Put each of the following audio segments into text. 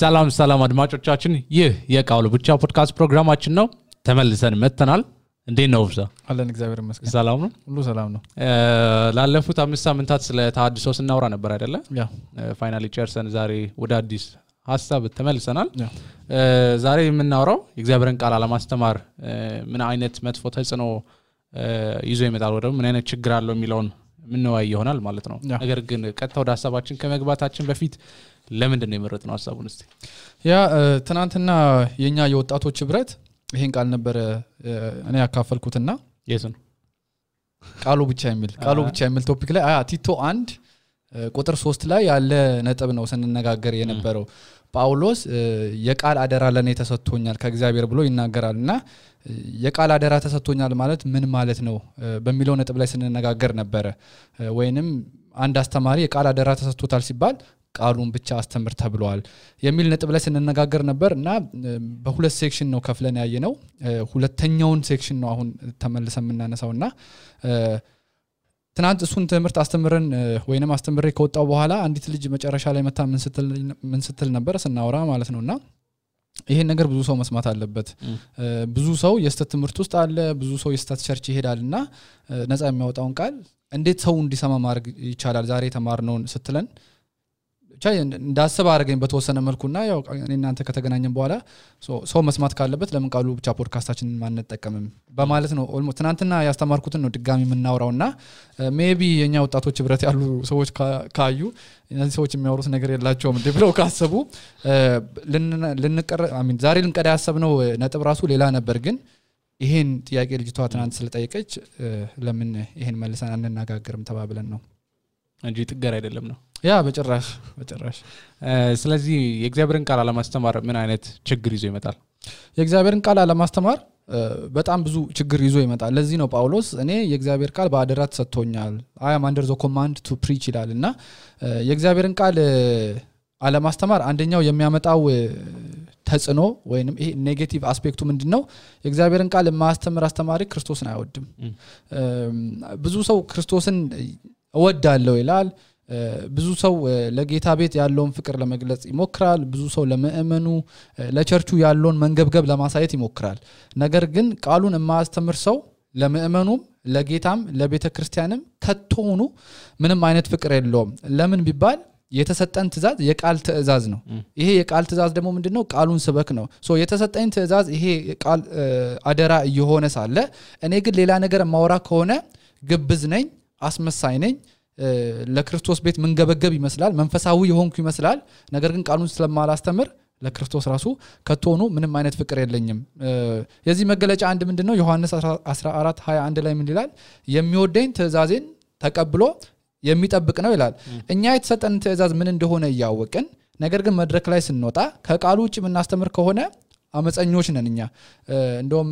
ሰላም አድማጮቻችን ይህ የቃሉ ብቻ ፖድካስት ፕሮግራማችን ነው ተመልሰን መተናል እንዴት ነው ብዛ አለን እግዚአብሔር ይመስገን ሰላም ነው ሁሉ ሰላም ነው ላለፉት 5 ሳምንታት ስለ ተሐድሶ ስናወራ ነበር አይደለ ያ ፋይናሊ ጨርሰን ዛሬ ወደ አዲስ ሐሳብ ተመልሰናል ዛሬ የምናወራው የእግዚአብሔርን ቃል አለማስተማር ምን አይነት መጥፎ ተጽዕኖ ይዞ ይመጣል ወደ ምን አይነት ችግር አለው የሚለውን ምን ነው ይሆናል ማለት ነው ነገር ግን ቀጥታ ወደ ሐሳባችን ከመግባታችን በፊት ለምንድን ነው የመረጥነው ሐሳቡን እስቲ ያ ትናንትና የኛ የወጣቶች ህብረት ይሄን ቃል ነበር እኔ ያካፈልኩትና የሱን ቃሉ ብቻ የሚል ቶፒክ ላይ ቲቶ 1 ቁጥር 3 ላይ ያለ ነጥብ ነው ስንነጋገር የነበረው ጳውሎስ የቃል አደራ ለኔ ተሰጥቶኛል ከእግዚአብሔር ብሎ ይናገራልና የቃል አደራ ተሰጥቶኛል ማለት ምን ማለት ነው በሚለው ነጥብ ላይ ስንነጋገር ነበር ወይንም አንድ አስተማሪ የቃል አደራ ተሰጥቶታል ሲባል ቃሉን ብቻ አስተምር ተብሏል የሚል ነጥብ ላይ ስንነጋገር ነበርና በሁለት ሴክሽን ነው ከፍለን ያየነው ሁለተኛውን ሴክሽን ነው አሁን ተመልሰን እናነሳውና ትናንት እሱን ትምህርት አስተምረን ወይንም አስተምሬ ከወጣው በኋላ አንዲት ልጅ መጨረሻ ላይ መታ ምን ስትል ነበር ስናወራ ማለት ነውና ይሄን ነገር ብዙ ሰው መስማት አለበት ብዙ ሰው የስተት ትምህርት ውስጥ አለ ብዙ ሰው የስተት ቸርች ይሄዳልና ነፃ የሚያወጣውን ቃል እንዴት ሰው እንዲሰማ ማድረግ ይቻላል ዛሬ ተማርነውን ስትለን እንዳስብ አረጋኝ በተወሰነ መልኩና ያው እናንተ ከተገናኘን በኋላ ሰው መስማት ካለበት ለምን ቃሉ ብቻ ፖድካስታችንን ማንጠቀምም በማለት ነው ኦልሞስት ትናንትና ያስተማርኩትን ነው ድጋሚ የምናወራውና ሜቢ የኛ ወጣቶች ህብረት ያሉ ሰዎች ካዩ እነዚህ ሰዎች የሚያወሩት ነገር የላቸውም እንዴ ብለው ካሰቡ ዛሬ ልንቀዳ ያሰብነው ነጥብ ራሱ ሌላ ነበር ግን ይሄን ጥያቄ ልጅቷ ትናንት ስለጠየቀች ለምን ይሄን መልሰን አንነጋገርም ተባብለን ነው እንጂ ጥገር አይደለም ነው ያ በጭራሽ ስለዚህ የእግዚአብሔርን ቃል አለማስተማር ምን አይነት ችግር ይዞ ይመጣል የእግዚአብሔርን ቃል አለማስተማር በጣም ብዙ ችግር ይዞ ይመጣል ለዚህ ነው ጳውሎስ እኔ የእግዚአብሔር ቃል በአደራ ተሰጥቶኛል I am under the command to preach ይላልና የእግዚአብሔርን ቃል አለማስተማር አንደኛው የሚያመጣው ተጽዕኖ ወይንም ይሄ ኔጌቲቭ አስፔክቱ ምንድነው የእግዚአብሔርን ቃል ማስተማር አስተማሪ ክርስቶስን አይወድም ብዙ ሰው ክርስቶስን እወዳለሁ ይላል ብዙ ሰው ለጌታ ቤት ያለውን ፍቅር ለመግለጽ ይሞክራል ብዙ ሰው ለምእመኑ ለቸርቹ ያለውን መንገብገብ ለማሳየት ይሞክራል ነገር ግን ቃሉን የማያስተምር ሰው ለምእመኑም ለጌታም ለቤተክርስቲያንም ከቶኑ ምንም አይነት ፍቅር የለውም ለምን ቢባል የተሰጠን ትእዛዝ የቃል ትእዛዝ ነው ይሄ የቃል ትእዛዝ ደግሞ ምንድነው ቃሉን ስበክ ነው የተሰጠን ትእዛዝ ይሄ ቃል አደራ እየሆነ ሳለ እኔ ግን ሌላ ነገር ማውራ ከሆነ ግብዝ ነኝ አስመሳይ ነኝ ለክርስቶስ ቤት መንገበገብ ይመስላል መንፈሳዊ የሆንኩ ይመስላል ነገር ግን ቃሉን ስለማላስተምር ለክርስቶስ ራሱ ከቶኑ ምንም አይነት ፍቅር የለኝም የዚህ መገለጫ አንድ ምንድነው ዮሐንስ 14:21 ላይ ምን ይላል የሚወደኝ ትእዛዜን ተቀብሎ የሚጠብቅ ነው ይላል እኛ የተሰጠን ትእዛዝ ምን እንደሆነ ያወቅን ነገር ግን መድረክ ላይ ስንወጣ ከቃሉ ውጭ ምናስተምር ከሆነ አመፀኞች ነን እኛ እንደውም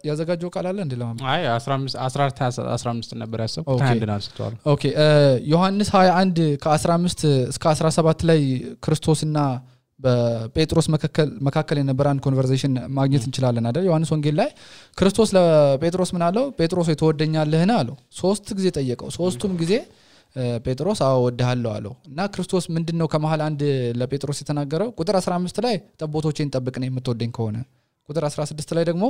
ያዘጋጀው ቃል አለ እንደለም አይ 15 ነበር ያሰብኩት አንድና አስተዋል ኦኬ ዮሐንስ 21 ከ15 እስከ 17 ላይ ክርስቶስና በጴጥሮስ መካከል የነበረ አንድ ኮንቨርሴሽን ማግኘት እንችላለን አይደል ዮሐንስ ወንጌል ላይ ክርስቶስ ለጴጥሮስ ምን አለው ጴጥሮስ የተወደኛለህና አለው 3 ጊዜ ጠየቀው 3ቱም ጊዜ ጴጥሮስ አወድሃለሁ አለው እና ክርስቶስ ምንድነው ከመሃል አንድ ለጴጥሮስ የተናገረው ቁጥር 15 ላይ ጠቦቶቼን ጠብቅ ነው የምትወደኝ ከሆነ ቁጥር 16 ላይ ደግሞ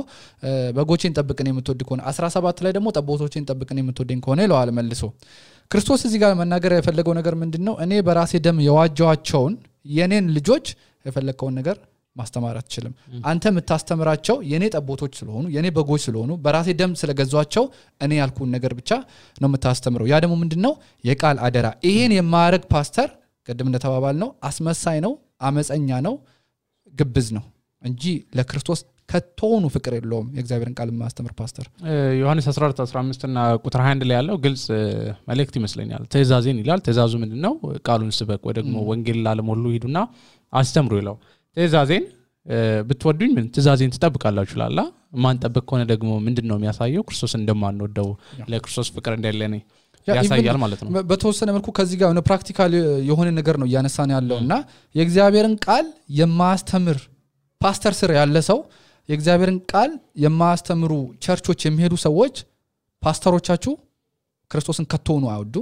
በጎቼን ጠብቅ ነው የምትወድ ከሆነ 17 ላይ ደግሞ ጠቦቶቼን ጠብቅ ነው የምትወደኝ ከሆነ ይለዋል መልሶ ክርስቶስ እዚህ ጋር መናገር የፈለገው ነገር ምንድነው እኔ በራሴ ደም የዋጃቸውን የኔን ልጆች የፈለከውን ነገር ማስተማር አትችልም አንተ የምታስተምራቸው የኔ ጠቦቶች ስለሆኑ የኔ በጎች ስለሆኑ በራሴ ደም ስለገዟቸው እኔ ያልኩን ነገር ብቻ ነው የምታስተምረው ያ ደግሞ ምንድነው የቃል አደራ ይሄን የማያረግ ፓስተር ቀደም እንደተባባል ነው አስመሳይ ነው አመፀኛ ነው ግብዝ ነው እንጂ ለክርስቶስ ከቶኑ ፍቅር የለውም የእግዚአብሔርን ቃል ማስተምር ፓስተር ዮሐንስ 14:15 እና ቁጥር 21 ላይ ያለው ግልጽ መልእክት ይመስለኛል ትእዛዜን ይላል ትእዛዙ ምንድነው ቃሉን ስበክ ወይ ደግሞ ወንጌል ለዓለም ሁሉ ሂዱና አስተምሩ ይላል ትእዛዜን ብትወዱኝ ምን ትእዛዜን ትጠብቃላችሁ ይላል ማን ጠብቅ ከሆነ ደግሞ ምንድነው የሚያሳየው ክርስቶስ እንደማንወደው ለክርስቶስ ፍቅር እንደሌለ ያሳያል ማለት ነው በተወሰነ መልኩ ከዚህ ጋር ነው ፕራክቲካል የሆነ ነገር ነው ያነሳን ያለውና የእግዚአብሔርን ቃል የማስተምር ፓስተር ስር ያለ ሰው የእግዚአብሔርን ቃል የማስተምሩ ቸርቾች የሚሄዱ ሰዎች ፓስተሮቻችሁ ክርስቶስን ከቶኑ አይወዱ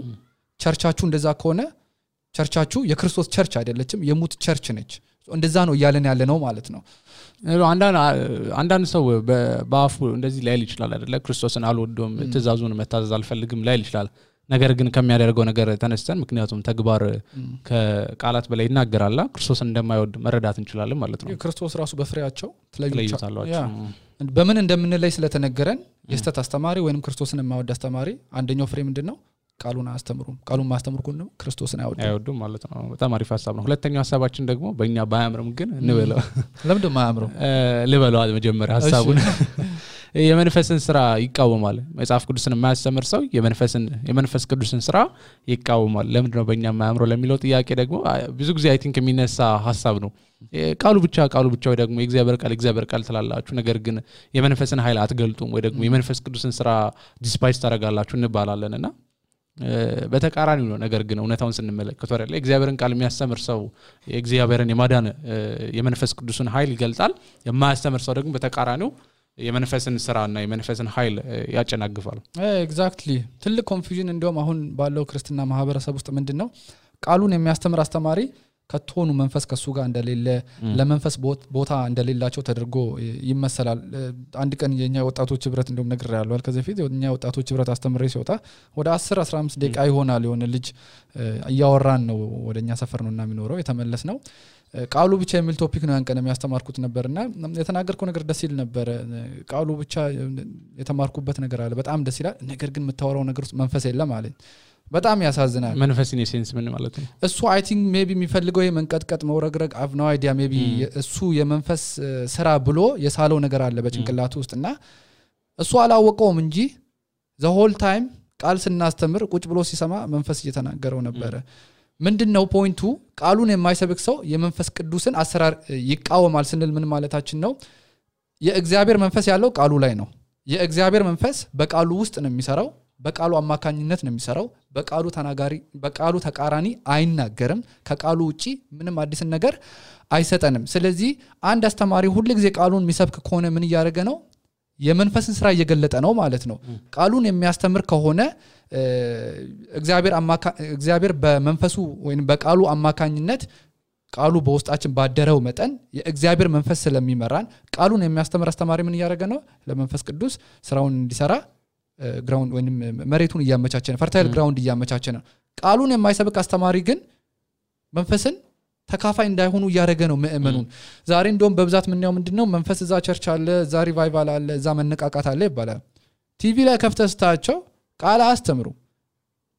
ቸርቻችሁ እንደዛ ከሆነ ቸርቻችሁ የክርስቶስ ቸርች አይደለችም የሙት ቸርች ነች እንደዛ ነው እያለን ያለ ነው ማለት ነው አንዳንድ ሰው በአፉ እንደዚህ ላይል ይችላል አይደለ ክርስቶስን አልወደውም ትእዛዙን መታዘዝ አልፈልግም ላይል ይችላል ነገር ግን ከሚያደርገው ነገር ተነስተን ምክንያቱም ተግባር ከቃላት በላይ ይናገራልና ክርስቶስን እንደማይወድ መረዳት እንችላለን ማለት ነው ክርስቶስ ራሱ በፍሬያቸው ትለዩታላችሁ በምን እንደምንለይ ስለተነገረን የስተት አስተማሪ ወይንም ክርስቶስን የማይወድ አስተማሪ አንደኛው ፍሬ ምንድነው ቃሉን አስተምሩም ቃሉን ማስተምሩ ነው ክርስቶስን አይወዱም ማለት ነው በጣም አሪፍ ሐሳብ ነው ሁለተኛው ሐሳባችን ደግሞ በእኛ ባያምርም ግን እንበለው ለምን ማያምርም ልበለው መጀመሪያ ሐሳቡን የመንፈስን ስራ ይቃወማል መጽሐፍ ቅዱስን የማያስተምር ሰው የመንፈስ ቅዱስን ስራ ይቃወማል ለምን ነው በእኛ ማያምረው ለሚለው ጥያቄ ደግሞ ብዙ ጊዜ አይ ቲንክ የሚነሳ ሐሳብ ነው ቃሉ ብቻ ወይ ደግሞ የእግዚአብሔር ቃል ትላላችሁ ነገር ግን የመንፈስን ኃይል አትገልጡም ወይ ደግሞ የመንፈስ ቅዱስን ስራ ዲስፓይስ ታደርጋላችሁ እንባላለንና በተቃራኒው ነው ነገር ግን እውነታውን ስንመለከት ወረለ እግዚአብሔርን ቃል የሚያስተምር ሰው የእግዚአብሔርን የማዳን የመንፈስ ቅዱስን ኃይል ይገልጣል የማያስተምር ሰው ደግሞ በተቃራኒው የመንፈስን ስራና የመንፈስን ኃይል ያጨናግፋል ኤግዛክትሊ ትልቅ ኮንፊውዥን እንደውም አሁን ባለው ክርስቲያና ማህበረሰብ ውስጥ ምንድነው ቃሉን የሚያስተምር አስተማሪ ከቶኑ መንፈስ ከሱ ጋር እንደሌለ ለመንፈስ ቦታ እንደሌላቸው ተደርጎ ይመሰላል አንድ ቀን የኛ ወጣቶች ህብረት እንደውም ነገር ያለው ከዚህ በፊት የኛ ወጣቶች ህብረት አስተምሬ ሲወጣ ወደ 10-15 ደቂቃ ይሆናል የሆነ ልጅ እያወራን ነው ወደኛ ሰፈር ነውና የሚኖረው የተመለስ ነው ቃሉ ብቻ የሚል ቶፒክ ነው ያንቀን የሚያስተማርኩት ነበርና የተናገርከው ነገር ደስ ይል ነበር ቃሉ ብቻ የተማርኩበት ነገር አለ በጣም ደስ ይላል ነገር ግን የምታወራው ነገር ውስጥ መንፈስ የለም ማለት በጣም ያሳዝናል መንፈስን የሴንስ ምን ማለት ነው እሱ አይ ቲንክ ሜቢ የሚፈልገው የመንቀጥቀጥ መውረግረግ አፍ ነው አይዲያ ሜቢ እሱ የመንፈስ ስራ ብሎ የሳለው ነገር አለ በጭንቅላቱ ውስጥና እሱ አላወቀውም እንጂ the whole time ቃል ስናስተምር ቁጭ ብሎ ሲሰማ መንፈስ እየተናገረው ነበር ምንድነው ፖይንቱ ቃሉን የማይሰብክ ሰው የመንፈስ ቅዱስን አሰራር ይቃወማል ስንል ምን ማለታችን ነው የእግዚአብሔር መንፈስ ያለው ቃሉ ላይ ነው የእግዚአብሔር መንፈስ በቃሉ ውስጥ ነው የሚሰራው በቃሉ አማካኝነት ነው የሚሰራው በቃሉ ተቃራኒ አይናገርም ከቃሉ ውጪ ምንም አዲስ ነገር አይሰጠንም ስለዚህ አንድ አስተማሪ ሁሉ ጊዜ ቃሉን የሚሰብክ ከሆነ ምን ያደርገ ነው የመንፈስን ስራ እየገለጠ ነው ማለት ነው ቃሉን የሚያስተምር ከሆነ እግዚአብሔር በመንፈሱ ወይንም በቃሉ አማካኝነት ቃሉ በውስጣችን ባደረው መጠን የእግዚአብሔር መንፈስ ስለሚመራን ቃሉን የሚያስተምር አስተማሪ ምን ያደርገ ነው ለመንፈስ ቅዱስ ስራውን እንዲሰራ ግራውንድ ወይንም መሬቱን እያመቻቸ ነው ፈርታይል ግራውንድ እያመቻቸ ነው ቃሉን የማይሰብክ አስተማሪ ግን መንፈስን ተካፋይ እንዳይሆኑ ያደረገ ነው ምእመኑን ዛሬ እንደውም በብዛት ምንያው ምንድነው መንፈስ እዛ ቸርች አለ እዛ ሪቫይቫል አለ እዛ መነቃቃት አለ ይባላል ቲቪ ላይ ከፍተስታቸው ቃል አስተምሩ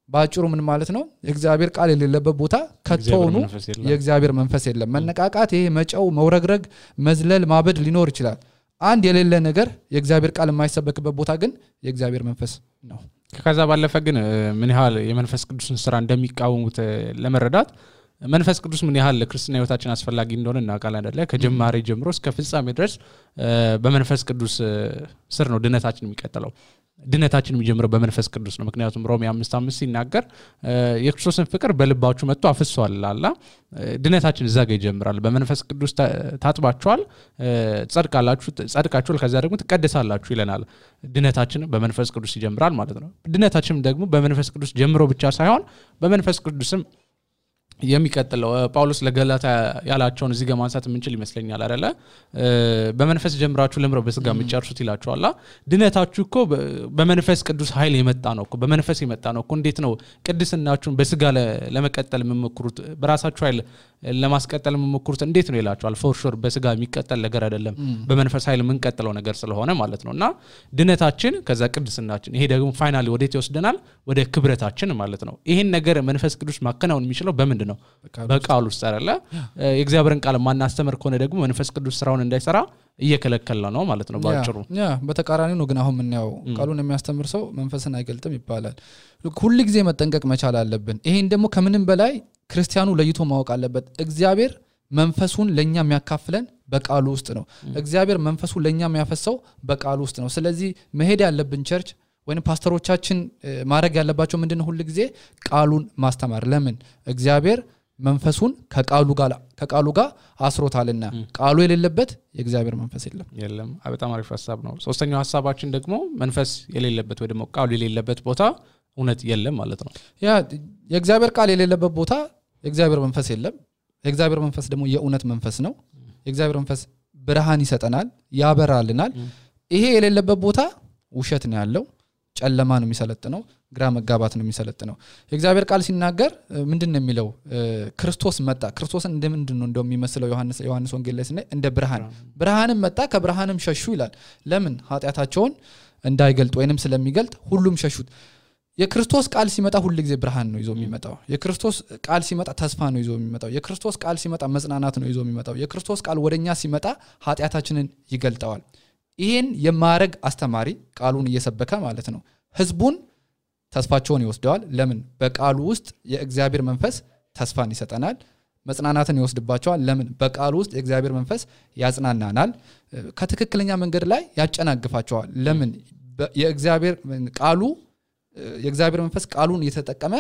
ባጭሩ ምን ማለት ነው የእግዚአብሔር ቃል የሌለበት ቦታ ከተውኑ የእግዚአብሔር መንፈስ የለም መነቃቃት ይሄ መጫው መውረግረግ መዝለል ማበድ ሊኖር ይችላል አንድ የሌለ ነገር የእግዚአብሔር ቃል የማይሰበክበት ቦታ ግን የእግዚአብሔር መንፈስ ነው ከዛ ባለፈ ግን ምን ያህል የመንፈስ ቅዱስን ስራ እንደሚቃወሙት ለመረዳት መንፈስ ቅዱስ ምን ያህል ለክርስቲና ህይወታችን አስፈላጊ እንደሆነ እናውቃለን አይደለ ከጀማሪ ጀምሮ እስከ ፍጻሜ ድረስ በመንፈስ ቅዱስ ስር ነው ድነታችን የሚቀጥለው ድነታችን የሚጀምረው በመንፈስ ቅዱስ ነው ምክንያቱም ሮሜ 5:5 ሲናገር የክርስቶስን ፍቅር በልባችሁ መጥቶ አፍሷል አላ ድነታችን እዛ ጋር ይጀምራል በመንፈስ ቅዱስ ታጥባችኋል ጸድቃችኋል ከዛ ደግሞ ትቀደሳላችሁ ይለናል ድነታችን በመንፈስ ቅዱስ ይጀምራል ማለት ነው ድነታችን ደግሞ በመንፈስ ቅዱስ ጀምሮ ብቻ ሳይሆን በመንፈስ ቅዱስም የሚቀጥለው ጳውሎስ ለገላታ ያላቸውን እዚህ ጋር ማንሳት ምንችል ይመስለኛል አይደለ በመንፈስ ጀምራችሁ ለምረው በስጋ ምጫርሱት ይላችኋል ድነታችሁ እኮ በመንፈስ ቅዱስ ኃይል የመጣ ነው እኮ በመንፈስ የመጣ ነው እኮ እንዴት ነው ቅድስናችሁን በስጋ ለመቀጠል የምትሞክሩት በራሳችሁ ኃይል ለማስቀጠል የምትሞክሩት እንዴት ነው ይላችኋል ፎር ሹር በስጋ የሚቀጠል ነገር አይደለም በመንፈስ ኃይል የምንቀጥለው ነገር ስለሆነ ማለት ነውና ድነታችን ከዛ ቅድስናችን ይሄ ደግሞ ፋይናሊ ወዴት ይወስደናል ወደ ክብረታችን ማለት ነው ይሄን ነገር መንፈስ ቅዱስ ማከናወን የሚችለው በመንድ ነው በቃሉ ውስጥ አይደለ የእግዚአብሔርን ቃል ማናስተምር ከሆነ ደግሞ መንፈስ ቅዱስ ስራውን እንዳይሰራ እየከለከለ ነው ማለት ነው ባጭሩ በተቃራኒው ነው ግን አሁን ምን ያው ቃሉን የሚያስተምር ሰው መንፈስን አይገልጥም ይባላል ሁሉ ጊዜ መጠንቀቅ መቻል አለብን ይሄን ደግሞ ከምንም በላይ ክርስቲያኑ ለይቶ ማወቅ አለበት እግዚአብሔር መንፈሱን ለኛ የሚያካፍለን በቃሉ ውስጥ ነው እግዚአብሔር መንፈሱን ለኛ የሚያፈሰው በቃሉ ውስጥ ነው ስለዚህ መሄድ ያለብን ቸርች ወይንም ፓስተሮቻችን ማድረግ ያለባቸው ምንድነው ሁሉ ጊዜ ቃሉን ማስተማር ለምን እግዚአብሔር መንፈሱን ከቃሉ ጋር አስሮታልና ቃሉ የሌለበት የእግዚአብሔር መንፈስ የለም በጣም አሪፍ ሐሳብ ነው ሶስተኛው ሐሳባችን ደግሞ መንፈስ የሌለበት ወይ ደግሞ ቃሉ የሌለበት ቦታ እውነት የለም ማለት ነው ያ የእግዚአብሔር ቃል የሌለበት ቦታ የእግዚአብሔር መንፈስ የለም የእግዚአብሔር መንፈስ ደግሞ የእውነት መንፈስ ነው የእግዚአብሔር መንፈስ ብርሃን ይሰጠናል ያበራልናል ይሄ የሌለበት ቦታ ውሸት ነው ያለው ጨለማ ነው የሚሰለጥነው ግራ መጋባት ነው የሚሰለጥነው የእግዚአብሔር ቃል ሲናገር ምንድነው የሚለው ክርስቶስ መጣ ክርስቶስን እንደምንድነው እንደሚመስለው ዮሐንስ ወንጌል ላይ ስናይ እንደ ብርሃንም መጣ ከብርሃንም ሸሹ ይላል ለምን ኃጢያታቸውን እንዳይገልጥ ወይንም ስለሚገልጥ ሁሉም ሸሹት የክርስቶስ ቃል ሲመጣ ሁሉ ጊዜ ብርሃን ነው ይዞ የሚመጣው የክርስቶስ ቃል ሲመጣ ተስፋ ነው ይዞ የሚመጣው የክርስቶስ ቃል ሲመጣ መጽናናት ነው ይዞ የሚመጣው የክርስቶስ ቃል ወደኛ ሲመጣ ኃጢያታችንን ይገልጣዋል ይሄን የማረግ አስተማሪ ቃሉን እየሰበከ ማለት ነው ህዝቡን ተስፋቸውን ይወስደዋል ለምን በቃሉ ውስጥ የእግዚአብሔር መንፈስ ተስፋን ይሰጠናል መጽናናትን ይወስድባቸዋል ለምን በቃሉ ውስጥ የእግዚአብሔር መንፈስ ያጽናናናል ከትክክለኛ መንገድ ላይ ያጨናግፋቸዋል ለምን የእግዚአብሔር መንፈስ ቃሉን እየተጠቀመ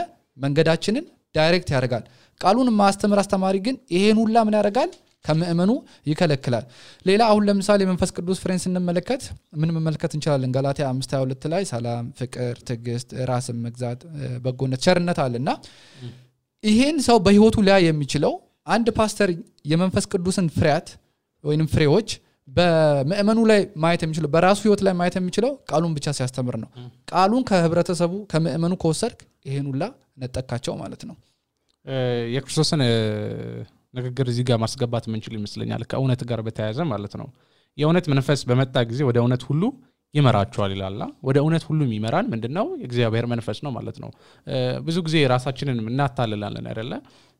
መንገዳችንን ዳይሬክት ያደርጋል ቃሉን ማስተምር አስተማሪ ግን ይሄን ሁላ ምን ያደርጋል ከመእመኑ ይከለክላል ሌላ አሁን ለምሳሌ መንፈስ ቅዱስ ፍሬን ስንመለከት ምን መመልከት እንችላለን ገላትያ 5:22 ላይ ሰላም ፍቅር ትዕግስት ራስን መግዛት በጎነት ቸርነት አለና ይሄን ሰው በህይወቱ ላይ የሚችለው አንድ ፓስተር የመንፈስ ቅዱስን ፍሬያት ወይንም ፍሬዎች በመእመኑ ላይ ማየት የሚችለው በራሱ ህይወት ላይ ማየት የሚችለው ቃሉን ብቻ ሲያስተምር ነው ቃሉን ከህብረተሰቡ ከመእመኑ ከወሰድክ ይሄን ሁላ ነጠቃቸው ማለት ነው የክርስቶስን ንግግር እዚህ ጋር ማስገባት ምንችል ይመስለኛል ከእውነት ጋር በተያያዘ ማለት ነው የእውነት መንፈስ በመጣ ጊዜ ወደ እውነት ሁሉ ይመራቸዋል ይላልና ወደ እውነት ሁሉ የሚመራን ምንድነው የእግዚአብሔር መንፈስ ነው ማለት ነው ብዙ ጊዜ ራሳችንን እናታልላለን አይደለ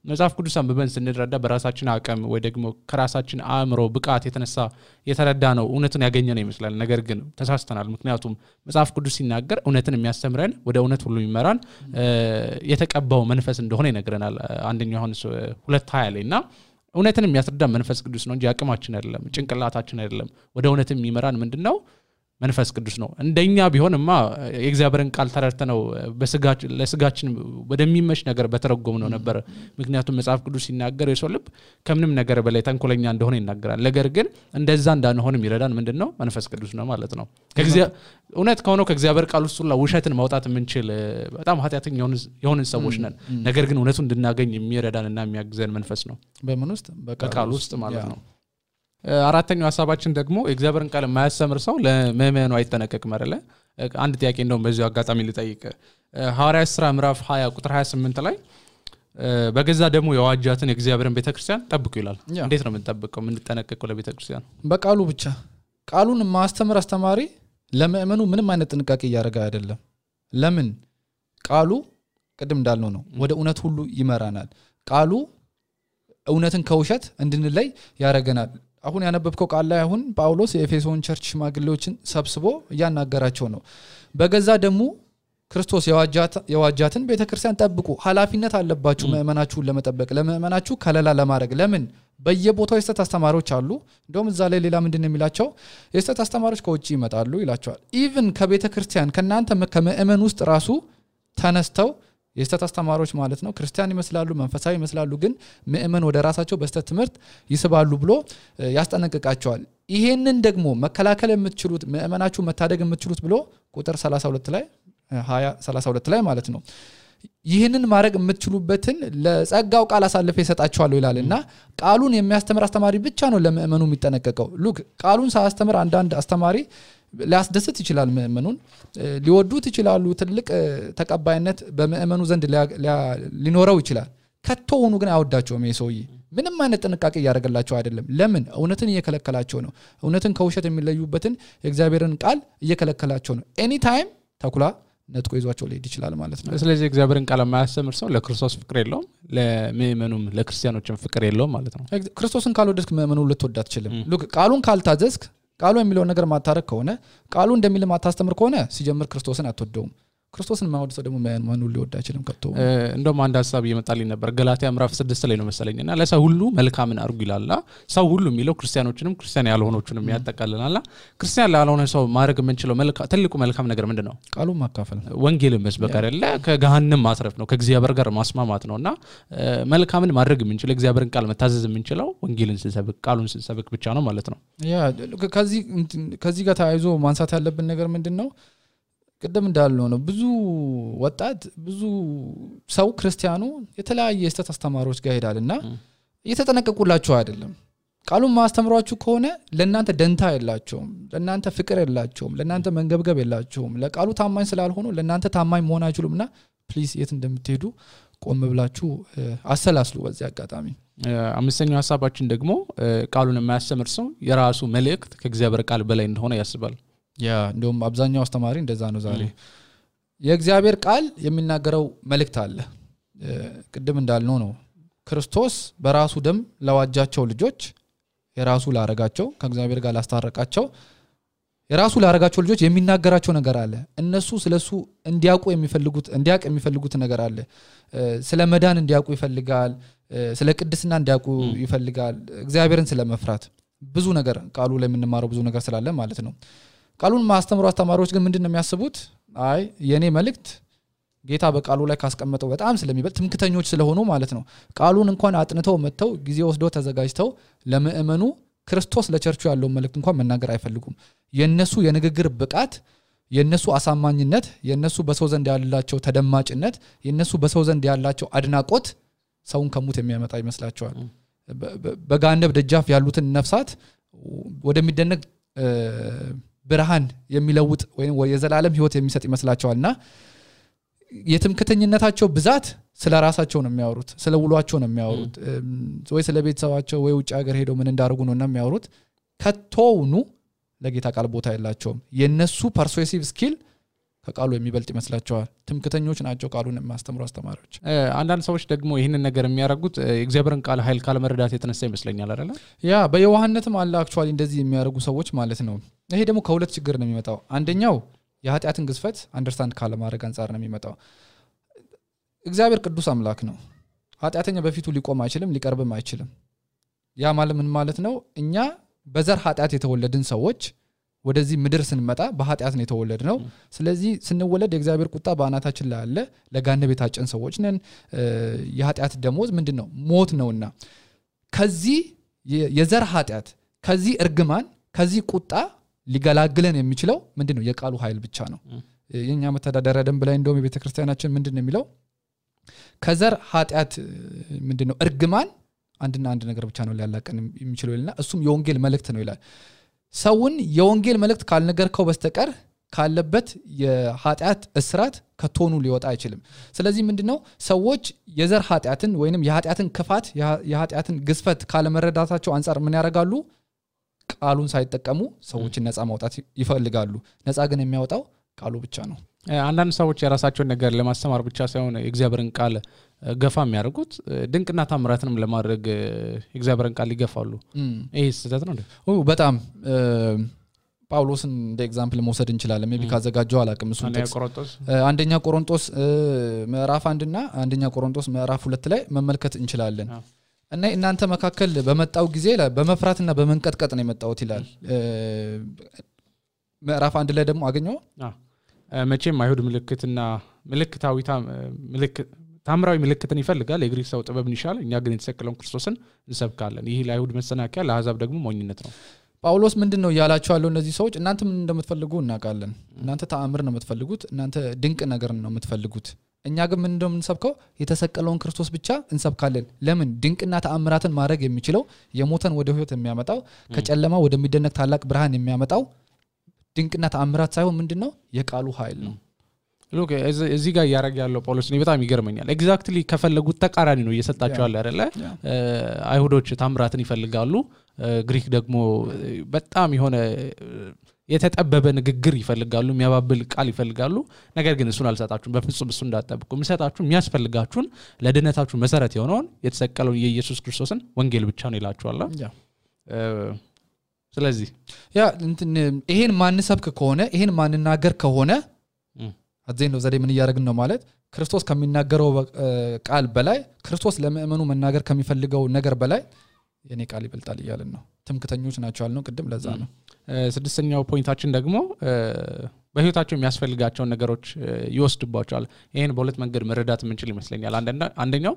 መጽሐፍ ቅዱስ አንብበን ስንረዳ በራሳችን አቅም ወይ ደግሞ ከራሳችን አእምሮ ብቃት የተረዳ ነው እውነትን ያገኘነው ይመስላል ነገር ግን ተሳስተናል ምክንያቱም መጽሐፍ ቅዱስ ሲናገር እውነትን የሚያስተምረን ወደ እውነት ሁሉ የሚመራን የተቀባው መንፈስ እንደሆነ ይነግረናል አንደኛው ዮሐንስ 2:20 ላይና እውነትን የሚያስረዳ መንፈስ ቅዱስ ነው እንጂ አቅማችን አይደለም ጭንቅላታችን አይደለም ወደ እውነትም የሚመራን ምንድነው መንፈስ ቅዱስ ነው እንደኛ ቢሆንማ የእግዚአብሔርን ቃል ተረድተነው ለስጋችን ወደሚመሽ ነገር በተረጎምነው ነበር ምክንያቱም መጽሐፍ ቅዱስ ሲናገር የሰው ልብ ከምንም ነገር በላይ ተንኮለኛ እንደሆነ ይናገራል ነገር ግን እንደዛ እንዳንሆንም ይረዳን ምንድነው መንፈስ ቅዱስ ነው ማለት ነው እውነት ከሆነ ከእግዚአብሔር ቃል ውስጥ ሁሉ ውሸትን ማውጣት የምንችል በጣም ኃጢያተኛ የሆንን ሰዎች ነን ነገር ግን እውነቱን እንድናገኝ የሚረዳንና የሚያግዘን መንፈስ ነው በምን ውስጥ በቃል ውስጥ ማለት ነው አራተኛው ሐሳባችን ደግሞ እግዚአብሔርን ቃል የማያስተምር ሰው ለመመኑ አይተነቀቅም አይደለ አንድ ጥያቄ እንደውም በዚሁ አጋጣሚ ልጠይቅ ሐዋርያት ሥራ ምዕራፍ 20 ቁጥር 28 ላይ በገዛ ደግሞ የዋጃትን የእግዚአብሔርን ቤተክርስቲያን ጠብቁ ይላል እንዴት ነው የምንጠብቀው የምንጠነቀቀው ለቤተክርስቲያን በቃሉ ብቻ ቃሉን ማስተምር አስተማሪ ለመመኑ ምንም አይነት ጥንቃቄ ያደርጋ አይደለም ለምን ቃሉ ቅድም እንዳልነው ነው ወደ እውነት ሁሉ ይመራናል ቃሉ እውነትን ከውሸት እንድንለይ ያረጋናል አሁን ያነበብከው ቃል ላይ አሁን ጳውሎስ የኤፌሶን ቸርች ሽማግሌዎችን ሰብስቦ ያናገራቸው ነው በገዛ ደግሞ ክርስቶስ የዋጃትን ቤተክርስቲያን ጠብቁ ኃላፊነት አለባችሁ መእመናችሁን ለመጠበቅ ለመእመናችሁ ከለላ ለማድረግ ለምን በየቦታው የስተት አስተማሪዎች አሉ እንደውም እዛ ላይ ሌላ ምንድነው የሚላቸው የስተት አስተማሪዎች ከውጪ ይመጣሉ ይላቸዋል ኢቭን ከቤተክርስቲያን ከናንተ ከመእመን ውስጥ ራሱ ተነስተው የስተት አስተማሪዎች ማለት ነው ክርስቲያን ይመስላሉ መንፈሳዊ ይመስላሉ ግን መእመን ወደ ራሳቸው በስተት ትምህርት ይስባሉ ብሎ ያስጠነቅቃቸዋል ይሄንን ደግሞ መከላከል የምትችሉት መእመናችሁ መታደግ የምትችሉት ብሎ ቁጥር 32 ላይ 32 ላይ ማለት ነው ይሄንን ማድረግ የምትችሉበትን ለጸጋው ቃል አሳልፈ ይሰጣቸዋል ይላልና ቃሉን የሚያስተምር አስተማሪ ብቻ ነው ለመእመኑ የሚጠነቀቀው ሉክ ቃሉን ሳያስተምር አንዳንድ አስተማሪ ሊያስደስት ይችላል መእመኑን ሊወዱት ይችላሉ ትልቅ ተቀባይነት በመእመኑ ዘንድ ሊኖረው ይችላል ከተውኑ ግን አይወዳቸውም የሰውዬ ምንም አይነት ጥንቃቄ ያደርግላቸው አይደለም ለምን እውነትን እየከለከላቸው ነው እውነትን ከውሸት የሚለዩበትን የእግዚአብሔርን ቃል እየከለከላቸው ነው ኤኒ ታይም ተኩላ ነጥቆ ይዟቸው ሊሄድ ይችላል ማለት ነው ስለዚህ እግዚአብሔርን ቃል የማያስተምር ሰው ለክርስቶስ ፍቅር የለውም ለመእመኑም ለክርስቲያኖችም ፍቅር የለውም ማለት ነው ክርስቶስን ካልወደድክ መእመኑ ልትወድ አትችልም ሉክ ቃሉን ካልታዘዝክ ቃሉ የሚለው ነገር ማታረክ ከሆነ ቃሉ እንደሚል ማታስተምር ከሆነ ሲጀምር ክርስቶስን አትወደውም ክርስቶስን ማወድ ሰው ደግሞ ማኑ ሊወድ አይችልም ከቶ እንደውም አንድ ሐሳብ ይመጣልኝ ነበር ገላትያ ምዕራፍ 6 ላይ ነው መሰለኝና ለሰው ሁሉ መልካምን አርጉ ይላልና ሰው ሁሉ የሚለው ክርስቲያኖችንም ክርስቲያን ያልሆኖችንም ያጠቃልላልና ክርስቲያን ያልሆነ ሰው ማድረግ የምንችለው ትልቁ መልካም ነገር ምንድነው ቃሉ ማካፈል ወንጌልን መስበክ አይደለ ከገሃነም ማትረፍ ነው ከእግዚአብሔር ጋር ማስማማት ነውና መልካምን ማድረግ የምንችለው እግዚአብሔርን ቃል መታዘዝ የምንችለው ወንጌልን ስንሰብክ ቃሉን ስንሰብክ ብቻ ነው ማለት ነው ያ ከዚህ ጋር ታይዞ ማንሳት ያለብን ነገር ምንድነው ቅድም እንዳልነው ነው ብዙ ወጣት ብዙ ሰው ክርስቲያኑ የተለያየ የስተት አስተማሪዎች ጋር ሄዳልና እየተጠነቀቁላችሁ አይደለም ቃሉን ማስተምሯችሁ ከሆነ ለእናንተ ደንታ የላቸውም ለእናንተ ፍቅር የላቸውም ለእናንተ መንገብገብ የላቸውም ለቃሉ ታማኝ ስላልሆኑ ለእናንተ ታማኝ መሆን አይችሉምና ፕሊዝ የት እንደምትሄዱ ቆም ብላችሁ አሰላስሉ በዚህ አጋጣሚ አምስተኛው ሐሳባችን ደግሞ ቃሉን የማያስተምር ሰው የራሱ መልእክት ከእግዚአብሔር ቃል በላይ እንደሆነ ያስባል እንደውም አብዛኛው አስተማሪ እንደዛ ነው ዛሬ የእግዚአብሔር ቃል የሚናገረው መልእክት አለ ቅድም እንዳልነው ነው ክርስቶስ በራሱ ደም ለዋጃቸው ልጆች የራሱ ላረጋቸው ከእግዚአብሔር ጋር ላስታረቃቸው የራሱ ላረጋቸው ልጆች የሚናገራቸው ነገር አለ እነሱ ስለሱ እንዲያውቁ የሚፈልጉት ነገር አለ ስለ መዳን እንዲያውቁ ይፈልጋል ስለ ቅድስና እንዲያውቁ ይፈልጋል እግዚአብሔርን ስለመፍራት ብዙ ነገር ቃሉ ላይ የምንማረው ብዙ ነገር ስላለ ማለት ነው ቃሉን ማስተምሩ አስተማሪዎች ግን ምንድነው የሚያስቡት አይ የኔ መልእክት ጌታ በቃሉ ላይ ካስቀመጠው በጣም ስለሚበልጥ ትምክተኞች ስለሆኑ ማለት ነው ቃሉን እንኳን አጥንተው መተው ጊዜ ወስደው ተዘጋጅተው ለምእመኑ ክርስቶስ ለቸርቹ ያለው መልእክት እንኳን መናገር አይፈልጉም የነሱ የንግግር ብቃት የነሱ አሳማኝነት የነሱ በሰው ዘንድ ያላቸው ተደማጭነት የነሱ በሰው ዘንድ ያላቸው አድናቆት ሰውን ከሙት የሚያመጣ ይመስላቸዋል በጋነብ ደጃፍ ያሉትን ነፍሳት ወደሚደነቅ ብርሃን የሚለውጥ ወይም የዘላለም ህይወት የሚሰጥ ይመስላቸዋልና የትምክተኝነታቸው ብዛት ስለ ራሳቸው ነው የሚያወሩት ስለ ውሏቸው ነው የሚያወሩት ወይ ስለ ቤተሰባቸው ወይ ውጭ ሀገር ሄደው ምን እንዳርጉ ነው የሚያወሩት ከቶውኑ ለጌታ ቃል ቦታ የላቸውም የነሱ ፐርሱሲቭ ስኪል ከቃሉ የሚበልጥ ይመስላቸዋል ትምክተኞች ናቸው ቃሉን የሚያስተምሩ አስተማሪዎች አንዳንድ ሰዎች ደግሞ ይሄንን ነገር የሚያረጉት እግዚአብሔርን ቃል ኃይል ካለ መረዳት የተነሳ ይመስለኛል አይደል በየዋህነትም አለ አክቹአሊ እንደዚህ የሚያረጉ ሰዎች ማለት ነው ይሄ ደግሞ ከሁለት ችግር ነው የሚመጣው አንደኛው የኃጢአትን ግዝፈት አንደርስታንድ ካለ ማድረግ አንፃር ነው የሚመጣው እግዚአብሔር ቅዱስ አምላክ ነው ኃጢአተኛ በፊቱ ሊቆም አይችልም ሊቀርብም አይችልም ያ ማለት ምን ማለት ነው እኛ በዘር ኃጢአት የተወለድን ሰዎች ወደዚህ ምድር ስንመጣ በኃጢአት ነው የተወለድነው ስለዚህ ስንወለድ የእግዚአብሔር ቁጣ በአናታችን ላይ አለ ለጋነብ የታጨን ሰዎች ነን የኃጢአት ደሞዝ ምንድነው ሞት ነውና ከዚህ የዘር ኃጢአት ከዚህ እርግማን ከዚህ ቁጣ ሊገላግለን የሚችለው ምንድነው የቃሉ ኃይል ብቻ ነው የኛ መተዳደሪያ ደንብ ላይ እንደውም የቤተክርስቲያናችን ምንድነው የሚለው ከዘር ኃጢአት ምንድነው እርግማን አንድና አንድ ነገር ብቻ ነው ሊያላቀን የሚችለው ይላልና እሱም የወንጌል መልእክት ነው ይላል ሰውን የወንጌል መልእክት ካልነገርከው በስተቀር ካለበት የኃጢአት እስራት ከቶኑ ሊወጣ አይችልም ስለዚህ ምንድነው ሰዎች የዘር ኃጢአትን ወይንም የኃጢአትን ክፋት የኃጢአትን ግዝፈት ካለመረዳታቸው አንፃር ምን ያደርጋሉ ቃሉን ሳይጠቀሙ ሰዎችን ነፃ ማውጣት ይፈልጋሉ ነፃ ግን የሚያወጣው ቃሉ ብቻ ነው አንዳንድ ሰዎች የራሳቸውን ነገር ለማስተማር ብቻ ሳይሆን እግዚአብሔርን ቃል ገፋ የሚያደርጉት ድንቅና ታምራትንም ለማድረግ እግዚአብሔርን ቃል ይገፋሉ ይሄ ስህተት ነው በጣም ጳውሎስን እንደ ኤግዛምፕል መውሰድ እንችላለን ሜቢ ካዘጋጀው አላቅም እሱ አንደኛ ቆሮንቶስ ምዕራፍ 1 እና አንደኛ ቆሮንቶስ ምዕራፍ 2 ላይ መመልከት እንችላለን እና እናንተ መካከል በመጣው ጊዜ በመፍራትና በመንቀጥቀጥ ነው የመጣውት ይላል ምዕራፍ 1 ላይ ደግሞ አገኘው መቼም አይሁድ ምልክትና ታምራዊ ምልክትን ይፈልጋል የግሪክ ሰው ጥበብን ይሻል እኛ ግን የተሰቀለውን ክርስቶስን እንሰብካለን ይሄ ለአይሁድ መሰናከያ ለአሕዛብ ደግሞ ሞኝነት ነው ጳውሎስ ምንድነው ያላቸው ያለው እነዚህ ሰዎች እናንተ ምን እንደምትፈልጉ እናውቃለን እናንተ ተአምር ነው የምትፈልጉት እናንተ ድንቅ ነገር ነው የምትፈልጉት እኛ ግን ምን እንደምንሰብከው የተሰቀለውን ክርስቶስ ብቻ እንሰብካለን ለምን ድንቅና ተአምራትን ማድረግ የሚችለው የሞተን ወደ ህይወት የሚያመጣው ከጨለማ ወደሚደነቅ ታላቅ ብርሃን የሚያመጣው ድንቅና ተአምራት ሳይሆን ምንድነው የቃሉ ኃይል ነው ሎክ እዚህ ጋር ያረጋ ያለው ጳውሎስ ነው በጣም ይገርመኛል ኤግዛክትሊ ከፈለጉት ተቃራኒ ነው እየሰጣቸው ያለ አይደለ አይሁዶች ታምራትን ይፈልጋሉ ግሪክ ደግሞ በጣም የሆነ የተጠበበ ንግግር ይፈልጋሉ የሚያባብል ቃል ይፈልጋሉ ነገር ግን እሱን አልሰጣችሁም በፍጹም እሱ እንዳጠብቁ የሚሰጣችሁ የሚያስፈልጋችሁን ለድነታችሁ መሰረት የሆነውን የተሰቀለውን የኢየሱስ ክርስቶስን ወንጌል ብቻ ነው ይላችኋል ስለዚህ ይሄን ማንሰብክ ከሆነ ይሄን ማንናገር ከሆነ አዘን ነው ዘዴ ምን ያረግን ነው ማለት ክርስቶስ ከሚናገረው ቃል በላይ ክርስቶስ ለምእመኑ መናገር ከሚፈልገው ነገር በላይ የኔ ቃል ይበልጣል ይያልን ነው ትምክተኞች ናቸው አልነው ቅድም ለዛ ነው ስድስተኛው ፖይንታችን ደግሞ በህይወታቸው የሚያስፈልጋቸውን ነገሮች ይወስድባቸዋል ይሄን በሁለት መንገድ መረዳት የምንችል ይመስለኛል አንደኛው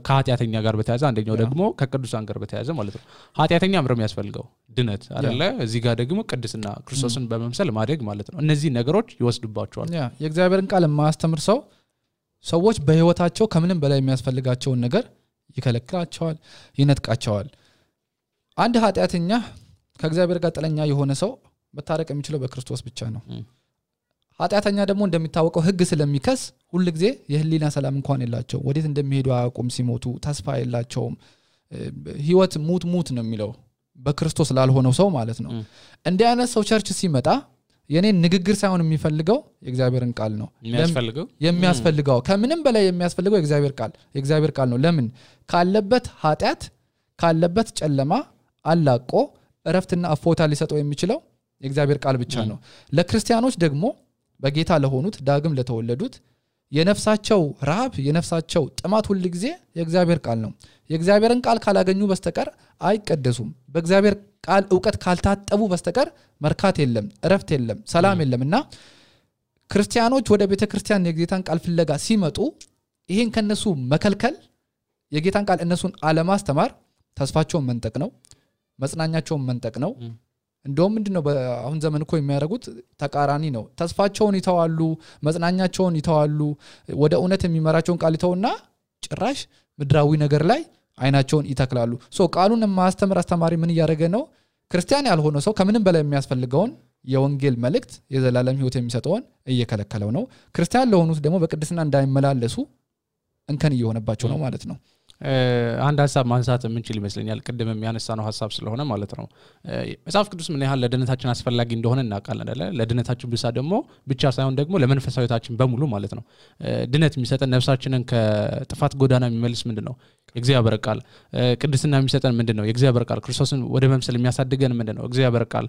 ከኃጢአተኛ ጋር በተያያዘ አንደኛው ደግሞ ከቅዱሳን ጋር በተያያዘ ማለት ነው ኃጢአተኛ ምንም ያስፈልገው ድነት አይደለ እዚህ ጋር ደግሞ ቅድስና ክርስቶስን በመምሰል ማደግ ማለት ነው እነዚህ ነገሮች ይወስድባቸዋል የእግዚአብሔርን ቃል ማስተምር ሰዎች በህይወታቸው ከምንም በላይ የሚያስፈልጋቸው ነገር ይከለክላቸዋል ይነጥቃቸዋል አንድ ኃጢአተኛ ከእግዚአብሔር ጋር ጥለኛ የሆነ ሰው መታረቅ የሚችለው በክርስቶስ ብቻ ነው ኃጢአተኛ ደግሞ እንደሚታወቀው ህግ ስለሚከስ ሁሉ ጊዜ የህሊና ሰላም እንኳን የላቸው ወዴት እንደሚሄዱ አያውቁም ሲሞቱ ተስፋ የላቸውም ህይወት ሙት ነው የሚለው በክርስቶስ ላልሆነው ሰው ማለት ነው እንደ አይነት ሰው ቸርች ሲመጣ የኔ ንግግር ሳይሆን የሚፈልገው የእግዚአብሔርን ቃል ነው የሚያስፈልገው ከምንም በላይ የሚያስፈልገው የእግዚአብሔር ቃል ነው ለምን ካለበት ኃጢአት ካለበት ጨለማ አላቆ እረፍትና አፎታ ሊሰጠው የሚችለው የእግዚአብሔር ቃል ብቻ ነው ለክርስቲያኖች ደግሞ በጌታ ለሆኑት ዳግም ለተወለዱት የነፍሳቸው ረሃብ የነፍሳቸው ጥማት ሁሉ ጊዜ የእግዚአብሔር ቃል ነው የእግዚአብሔርን ቃል ካላገኙ በስተቀር አይቀደሱም በእግዚአብሔር ቃል ዕውቀት ካልታጠቡ በስተቀር መርካት የለም እረፍት የለም ሰላም የለምና ክርስቲያኖች ወደ ቤተክርስቲያን የጌታን ቃል ፍለጋ ሲመጡ ይሄን ከነሱ መከልከል የጌታን ቃል እነሱን አለማስተማር ተስፋቸውን መንጠቅ ነው መጽናኛቸውን መንጠቅ ነው እንደውም ምንድነው አሁን ዘመን እኮ የሚያደርጉት ተቃራኒ ነው ተስፋቸውን ይተዋሉ መጽናኛቸውን ይተዋሉ ወደ እውነት የሚመራቸውን ቃል ይተውና ጭራሽ ምድራዊ ነገር ላይ አይናቸውን ይተክላሉ ቃሉን ማስተማር አስተማሪ ምን ያደረገ ነው ክርስቲያን ያልሆነ ሰው ከምንም በላይ የሚያስፈልገውን የወንጌል መልእክት የዘላለም ህይወት የሚሰጠውን እየከለከለው ነው ክርስቲያን ለሆኑት ደግሞ በቅድስና እንዳይመላለሱ እንከን እየሆነባቸው ነው ማለት ነው አንድ ሐሳብ ማንሳት የምንችል ይመስለኛል ቅድም የሚያነሳነው ሐሳብ ስለሆነ ማለት ነው መጽሐፍ ቅዱስ ምን ያህል ለድነታችን አስፈላጊ እንደሆነ እናውቃለን አይደል ለድነታችን ብቻ ሳይሆን ደግሞ ለመንፈሳዊታችን በሙሉ ማለት ነው ድነት የሚሰጠን ነፍሳችንን ከጥፋት ጎዳና የሚመልስ ምንድነው የእግዚአብሔር ቃል ቅድስና የሚሰጠን ምንድነው የእግዚአብሔር ቃል ክርስቶስን ወደ መምሰል የሚያሳድገን ምንድነው እግዚአብሔር ቃል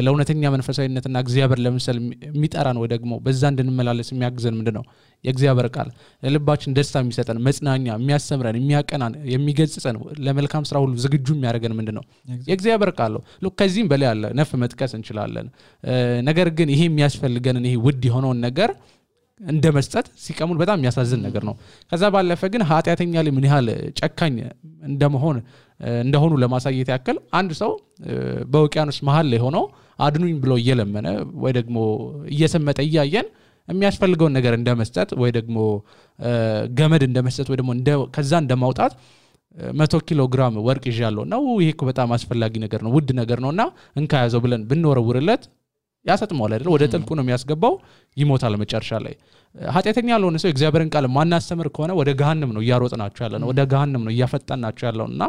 ለእውነተኛ መንፈሳዊነትና እግዚአብሔር ለምሳሌ የሚጠራን ወይ ደግሞ በዛ እንድንመላለስ የሚያግዘን ምንድነው የእግዚአብሔር ቃል ለልባችን ደስታ የሚሰጠን መጽናኛ የሚያስተምረን የሚያቀናን የሚገጽጸን ለመልካም ስራ ሁሉ ዝግጁ የሚያደርገን ምንድነው የእግዚአብሔር ቃል ነው ከዚህም በላይ ያለ ነፍ መጥቀስ እንችላለን ነገር ግን ይሄ የሚያስፈልገን ይሄ ውድ የሆነው ነገር እንደመስጠት ሲቀሙን በጣም የሚያሳዝን ነገር ነው ከዛ ባለፈ ግን ኃጢአተኛ ላይ ምን ያህል ጨካኝ እንደሆኑ ለማሳየት ያክል አንድ ሰው በውቅያኖስ መሃል ላይ ሆኖ አድኑኝ ብሎ እየለመነ ወይ ደግሞ እየሰመጠ እያየን የሚያስፈልገውን ነገር እንደመስጠት ወይ ደግሞ ገመድ እንደመስጠት ወይ ደግሞ ከዛ እንደማውጣት 100 ኪሎ ግራም ወርቅ ይዣለሁ ነው ይሄ እኮ በጣም አስፈላጊ ነገር ነው ውድ ነገር ነውና እንካያዘው ብለን ብንወረውርለት ያሰጥማል አይደል ወደ ጥልቁ ነው የሚያስገባው ይሞታል መጨረሻ ላይ ኃጢአተኛ ያልሆነ ሰው እግዚአብሔርን ቃል ማናስተምር ከሆነ ወደ ገሃነም ነው እያሮጥናቸው ያለነው ወደ ገሃነም ነው እያፈጣናቸው ያለውና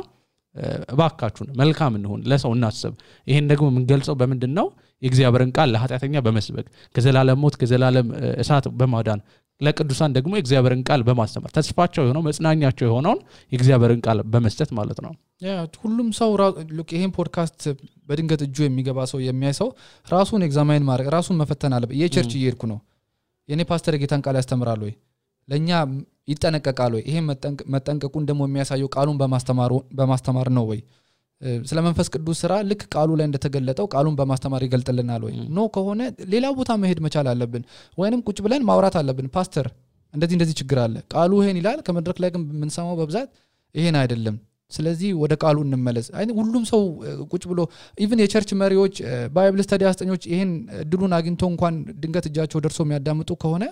እባካችሁን መልካም እንሁን ለሰው እናስብ ይሄን ደግሞ የምንገልጸው በመንድነው የእግዚአብሔርን ቃል ለኃጢአተኛ በመስበክ ከዘላለም ሞት ከዘላለም እሳት በማዳን ለቅዱሳን ደግሞ የእግዚአብሔርን ቃል በማስተማር ተስፋቸው የሆነው መጽናኛቸው የሆነውን የእግዚአብሔርን ቃል በመስጠት ማለት ነው ሁሉም ሰው ይሄን ፖድካስት በድንገት እጁ የሚገባ ሰው የሚያይ ሰው ራሱን ኤግዛማይን ማድረግ ራሱን መፈተን አለበት የቸርች እየሄድኩ ነው የኔ ፓስተር ጌታን ቃል ያስተምራል ወይ ለኛ ይጠነቀቃል ወይ ይሄ መጠንቀቁን ደግሞ የሚያሳየው ቃሉን በማስተማር ነው ወይ ስለ መንፈስ ቅዱስ ስራ ልክ ቃሉ ላይ እንደተገለጠው ቃሉን በማስተማር ይገልጥልናል ወይ ኖ ከሆነ ሌላ ቦታ መሄድ መቻል አለብን ወይንም ቁጭ ብለን ማውራት አለብን ፓስተር እንደዚህ ችግር አለ ቃሉ ይሄን ይላል ከመድረክ ላይ ግን ምንሰማው በብዛት ይሄን አይደለም ስለዚህ ወደ ቃሉ እንመለስ ሁሉም ሰው ቁጭ ብሎ ኢቭን የቸርች መሪዎች ባይብል ስተዲ አስተኞች ይሄን ድሉን አግኝተው እንኳን ድንገት እጃቸው ደርሶ የሚያዳምጡ ከሆነ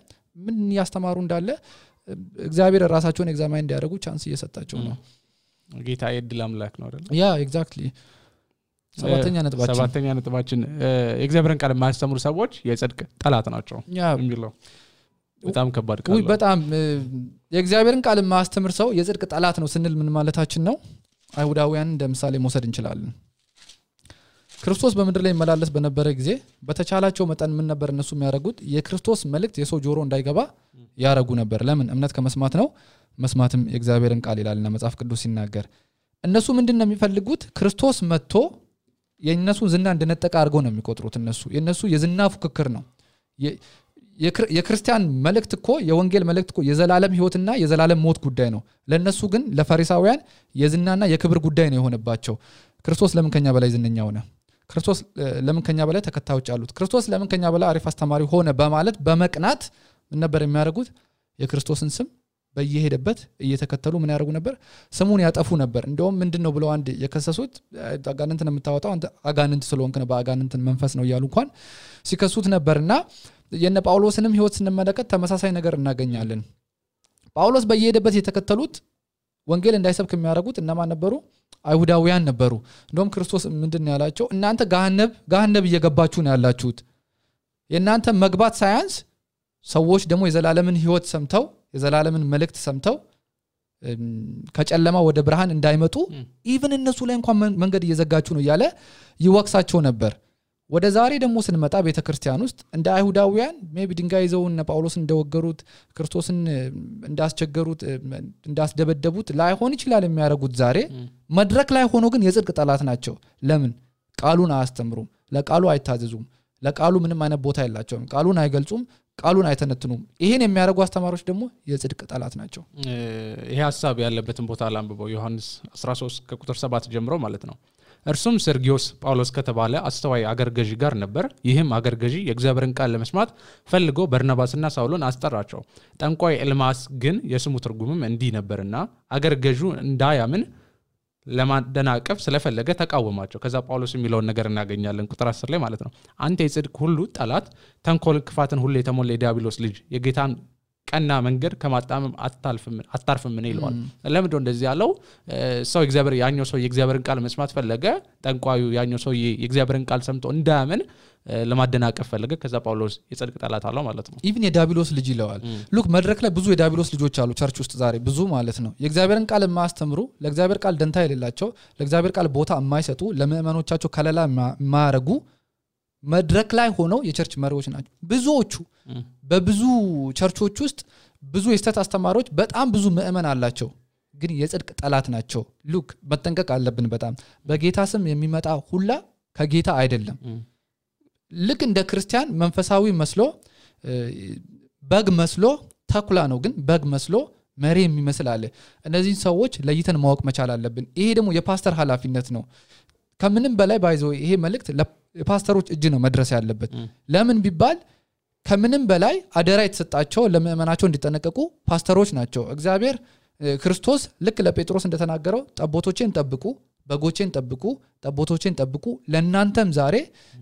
ምን ያስተማሩ እንዳለ እግዚአብሔር ራሳቸውን ኤግዛማይን እንዲያደርጉ ቻንስ እየሰጣቸው ነው ጌታ የድል አምላክ ነው አይደል ያ ኤግዛክትሊ ሰባተኛ ነጥባችን የእግዚአብሔርን ቃል የማያስተምሩ ሰዎች የጽድቅ ጠላት ናቸው የሚለው በጣም ከባድ ቃል ነው በጣም የእግዚአብሔርን ቃል የማያስተምር ሰው የጽድቅ ጠላት ነው ስንል ምን ማለታችን ነው አይሁዳውያን እንደምሳሌ መውሰድ እንችላለን ክርስቶስ በመድር ላይ መላለስ በነበረ ጊዜ በተቻላቸው መጠን ምን ነበር እነሱ የሚያደርጉት የክርስቶስ መልእክት የሰው ጆሮ እንዳይገባ ያረጉ ነበር ለምን እምነት ከመስማት ነው መስማትም የእግዚአብሔርን ቃል ይላልና መጽሐፍ ቅዱስ ሲናገር እነሱ ምንድነው የሚፈልጉት ክርስቶስ መጥቶ የነሱ ዝና እንደነጠቀ አድርገው ነው የሚቆጥሩት የነሱ የዝና ፉክክር ነው የክርስቲያን መልእክት እኮ የወንጌል መልእክት እኮ የዘላለም ህይወትና የዘላለም ሞት ጉዳይ ነው ለነሱ ግን ለፈሪሳውያን የዝናና የክብር ጉዳይ ነው የሆነባቸው ክርስቶስ ለምን ከኛ በላይ ዝነኛ ሆነ ክርስቶስ ለምን ከኛ በላይ ተከታዮች አሉት ክርስቶስ ለምን ከኛ በላይ አሪፍ አስተማሪ ሆነ በማለት በመቅናት ምን ነበር የሚያደርጉት የክርስቶስን ስም በየሄደበት እየተከተሉ ምን ያደርጉ ነበር ስሙን ያጠፉ ነበር እንደውም ምንድነው ብለው አንድ የከሰሱት አጋንንትን የምታወጣው አንተ አጋንንት ስለሆንክ ነው በአጋንንትን መንፈስ ነው ይያሉ እንኳን ሲከሱት ነበርና የነ ጳውሎስንም ህይወት ስንመለከት ተመሳሳይ ነገር እናገኛለን ጳውሎስ በየሄደበት የተከተሉት ወንጌል እንዳይሰብክ የሚያደርጉት እነማን ነበሩ አይሁዳውያን ነበሩ እንደውም ክርስቶስ ምንድነው ያላቸው እናንተ ገሃነብ እየገባችሁ ነው ያላችሁት የናንተ መግባት ሳይንስ ሰዎች ደግሞ የዘላለምን ህይወት ሰምተው የዘላለምን መልእክት ሰምተው ከጨለማ ወደ ብርሃን እንዳይመጡ ኢቭን እነሱ ላይ እንኳን መንገድ እየዘጋችሁ ነው ያለ ይወቅሳቸው ነበር ወደ ዛሬ ደግሞ ስንመጣ ቤተክርስቲያን ውስጥ እንደ አይሁዳውያን ሜቢ ድንጋይ ይዘው እነ ጳውሎስ እንደወገሩት ክርስቶስን እንዳስቸገሩት እንዳስደበደቡት ላይሆን ይችላል የሚያረጉት ዛሬ መድረክ ላይ ሆኖ ግን የጽድቅ ጠላት ናቸው ለምን ቃሉን አያስተምሩም ለቃሉ አይታዘዙም ለቃሉ ምንም አይነት ቦታ የላቸውም ቃሉን አይገልጹም ቃሉን አይተነትኑም ይሄን የሚያረጉ አስተማሪዎች ደግሞ የጽድቅ ጠላት ናቸው ይሄ ሐሳብ ያለበትን ቦታ አላንብበው ዮሐንስ 13 ከቁጥር 7 ጀምሮ ማለት ነው እርሱም ሰርጊዮስ ጳውሎስ ከተባለ አስተዋይ አገር ገዢ ጋር ነበር ይህም አገር ገዢ የእግዚአብሔርን ቃል ለመስማት ፈልጎ በርናባስና ሳውልን አስጠራቸው ጠንቋይ ኤልማስ ግን የስሙ ትርጉምም እንዲህ ነበርና አገር ገዢው እንዳያምን ለማደናቀፍ ስለፈለገ ተቃወማቸው ከዛ ጳውሎስ የሚለው ነገር እናገኛለን ቁጥር 10 ላይ ማለት ነው አንተ የጽድቅ ሁሉ ጠላት ተንኮል ክፋትን ሁሉ የተሞላ የዲያብሎስ ልጅ የጌታን ቀና መንገድ ከማጣመም አታርፍም ምን ይለዋል ለምን እንደዚህ ያለው ሰው እግዚአብሔር ያኛው ሰው የእግዚአብሔርን ቃል መስማት ፈለገ ጠንቋዩ ያኛው ሰው የእግዚአብሔርን ቃል ሰምቶ እንዳያምን ለማደናቀፍ ፈለገ ከዛ ጳውሎስ የጽድቅ ጠላት አለው ማለት ነው ኢቭን የዲያብሎስ ልጅ ይለዋል ሉክ መድረክ ላይ ብዙ የዲያብሎስ ልጆች አሉ ቸርች ውስጥ ዛሬ ብዙ ማለት ነው የእግዚአብሔርን ቃል የማያስተምሩ ለእግዚአብሔር ቃል ደንታ የሌላቸው ለእግዚአብሔር ቃል ቦታ የማይሰጡ ለምእመኖቻቸው ከለላ የማያረጉ መድረክ ላይ ሆነው የቸርች መሪዎች ናቸው ብዙዎቹ በብዙ ቸርቾች ውስጥ ብዙ የስተት አስተማሪዎች በጣም ብዙ ምእመን አላቸው ግን የጽድቅ ጠላት ናቸው ሉክ በተንቀቅ አለብን በጣም በጌታ ስም የሚመጣ ሁላ ከጌታ አይደለም ልክ እንደ ክርስቲያን መንፈሳዊ መስሎ በግ መስሎ ተኩላ ነው ግን በግ መስሎ መሪ የሚመስል አለ እነዚህ ሰዎች ለይተን ማወቅ መቻል አለብን ይሄ ደግሞ የፓስተር ኃላፊነት ነው ከምንም በላይ ባይዘው ይሄ መልእክት ለፓስተሮች እጅ ነው መድረስ ያለበት ለምን ቢባል ከምንም በላይ አደራ የተሰጣቸው ለምእመናቸው እንዲጠነቀቁ ፓስተሮች ናቸው እግዚአብሔር ክርስቶስ ልክ ለጴጥሮስ እንደተናገረው ጠቦቶቼን ጠብቁ በጎቼን ጠብቁ ጠቦቶቼን ጠብቁ ለናንተም ዛሬ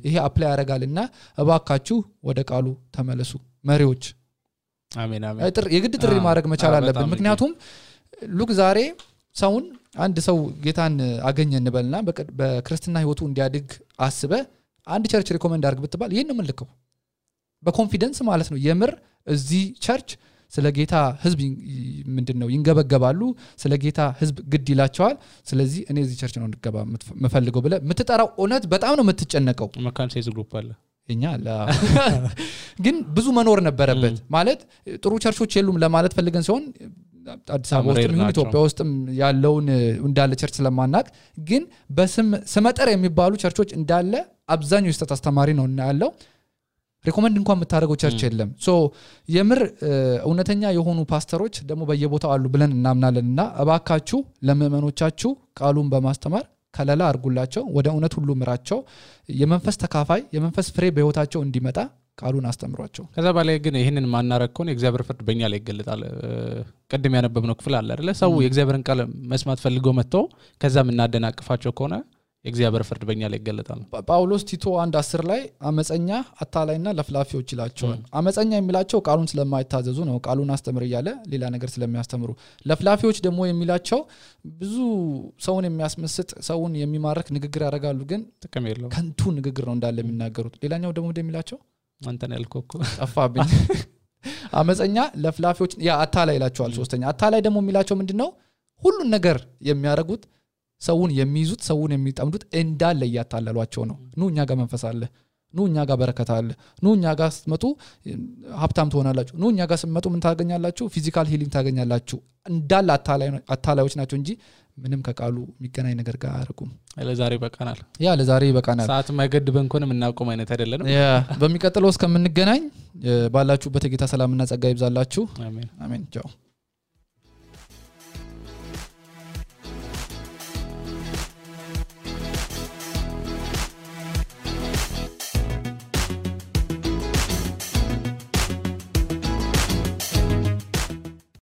ይሄ አፕላይ ያረጋልና እባካችሁ ወደ ቃሉ ተመለሱ መሪዎች አሜን አሜን የግድ ጥሪ ማድረግ መቻል አለብን ምክንያቱም ሉክ ዛሬ ሰውን አንድ ሰው ጌታን አገኘ እንበልና በክርስትና ህይወቱ እንዲያድግ አስበ አንድ ቸርች ሪኮመንድ አድርግ ብትባል ይሄን ነው መልከው በኮንፊደንስ ማለት ነው የምር እዚህ ቸርች ስለ ጌታ ህዝብ ምንድነው ይንገበገባሉ ስለ ጌታ ህዝብ ግድ ይላቸዋል ስለዚህ እኔ እዚህ ቸርች ነው እንድገባ መፈልገው ብለ ምትጠራው ኦነት በጣም ነው የምትጨነቀው መካን ሴዝ ግሩፕ አለ እኛ ግን ብዙ መኖር ነበረበት ማለት ጥሩ ቸርቾች የሉም ለማለት ፈልገን ሲሆን አዲስ አበባ ውስጥ ምን ኢትዮጵያ ውስጥም ያለውን እንዳለ ቸርች ስለማናቅ ግን በስም ስመጠር የሚባሉ ቸርቾች እንዳለ አብዛኛው የስተት አስተማሪ ነው እና ያለው ሪኮመንድ እንኳን መታረገው ቸርች የለም ሶ የምር እውነተኛ የሆኑ ፓስተሮች ደግሞ በየቦታው አሉ ብለን እናምናለንና አባካችሁ ለምእመኖቻችሁ ቃሉን በማስተማር ከለላ አርጉላቸው ወደ እውነት ሁሉ ምራቸው የመንፈስ ተካፋይ የመንፈስ ፍሬ በህይወታቸው እንዲመጣ ቃሉን አስተምሯቸው ከዛ በላይ ግን ይሄንን ማናረከውን የእግዚአብሔር ፍርድ በእኛ ላይ ይገለጣል ቀደም ያነበብነው ክፍል አለ አይደለ ሰው የእግዚአብሔርን ቃል መስማት ፈልገው መጥተው ከዛም እናደናቅፋቸው ከሆነ የእግዚአብሔር ፍርድ በእኛ ላይ ይገለጣል ጳውሎስ ቲቶ 1:10 ላይ አመፀኛ አታላይና ለፍላፊዎች ይላቸዋል አመፀኛ የሚላቸው ቃሉን ስለማይታዘዙ ነው ቃሉን አስተምር ይያለ ሌላ ነገር ስለሚያስተምሩ ለፍላፊዎች ደግሞ የሚላቸው ብዙ ሰውን የሚያስመስጥ ሰውን የሚማርክ ንግግር ያደርጋሉ ግን ጥቅም የለውም ከንቱ ንግግር ነው እንዳለ የሚናገሩት ሌላኛው ደግሞ እንደሚላቸው አንተን ያልኮኩ ጠፋብኝ አመፀኛ ለፍላፊዎች ያ አታላይ ይላቸዋል ሶስተኛ አታላይ ደግሞ የሚላቸው ምንድነው ሁሉን ነገር የሚያረጉት ሰውን የሚይዙት ሰውን የሚጠምዱት እንዳለ ያታለሏቸው ነው ኑ እኛ ጋር መንፈስ አለ ኑ እኛ ጋር በረከት አለ ኑ እኛ ጋር ስትመጡ ሀብታም ትሆናላችሁ ኑ እኛ ጋር ስትመጡ ምን ታገኛላችሁ ፊዚካል ሂሊንግ ታገኛላችሁ እንዳለ አታላዮች ናቸው እንጂ ምንም ከቃሉ የሚገናኝ ነገር ጋር አያረጉም ለዛሬ በቃናል ሰዓት ማይገድበን ኮንም እናቆም አይነት አይደለም በሚቀጥለው እስከምንገናኝ ባላችሁበት የጌታ ሰላምና ጸጋ ይብዛላችሁ አሜን ቻው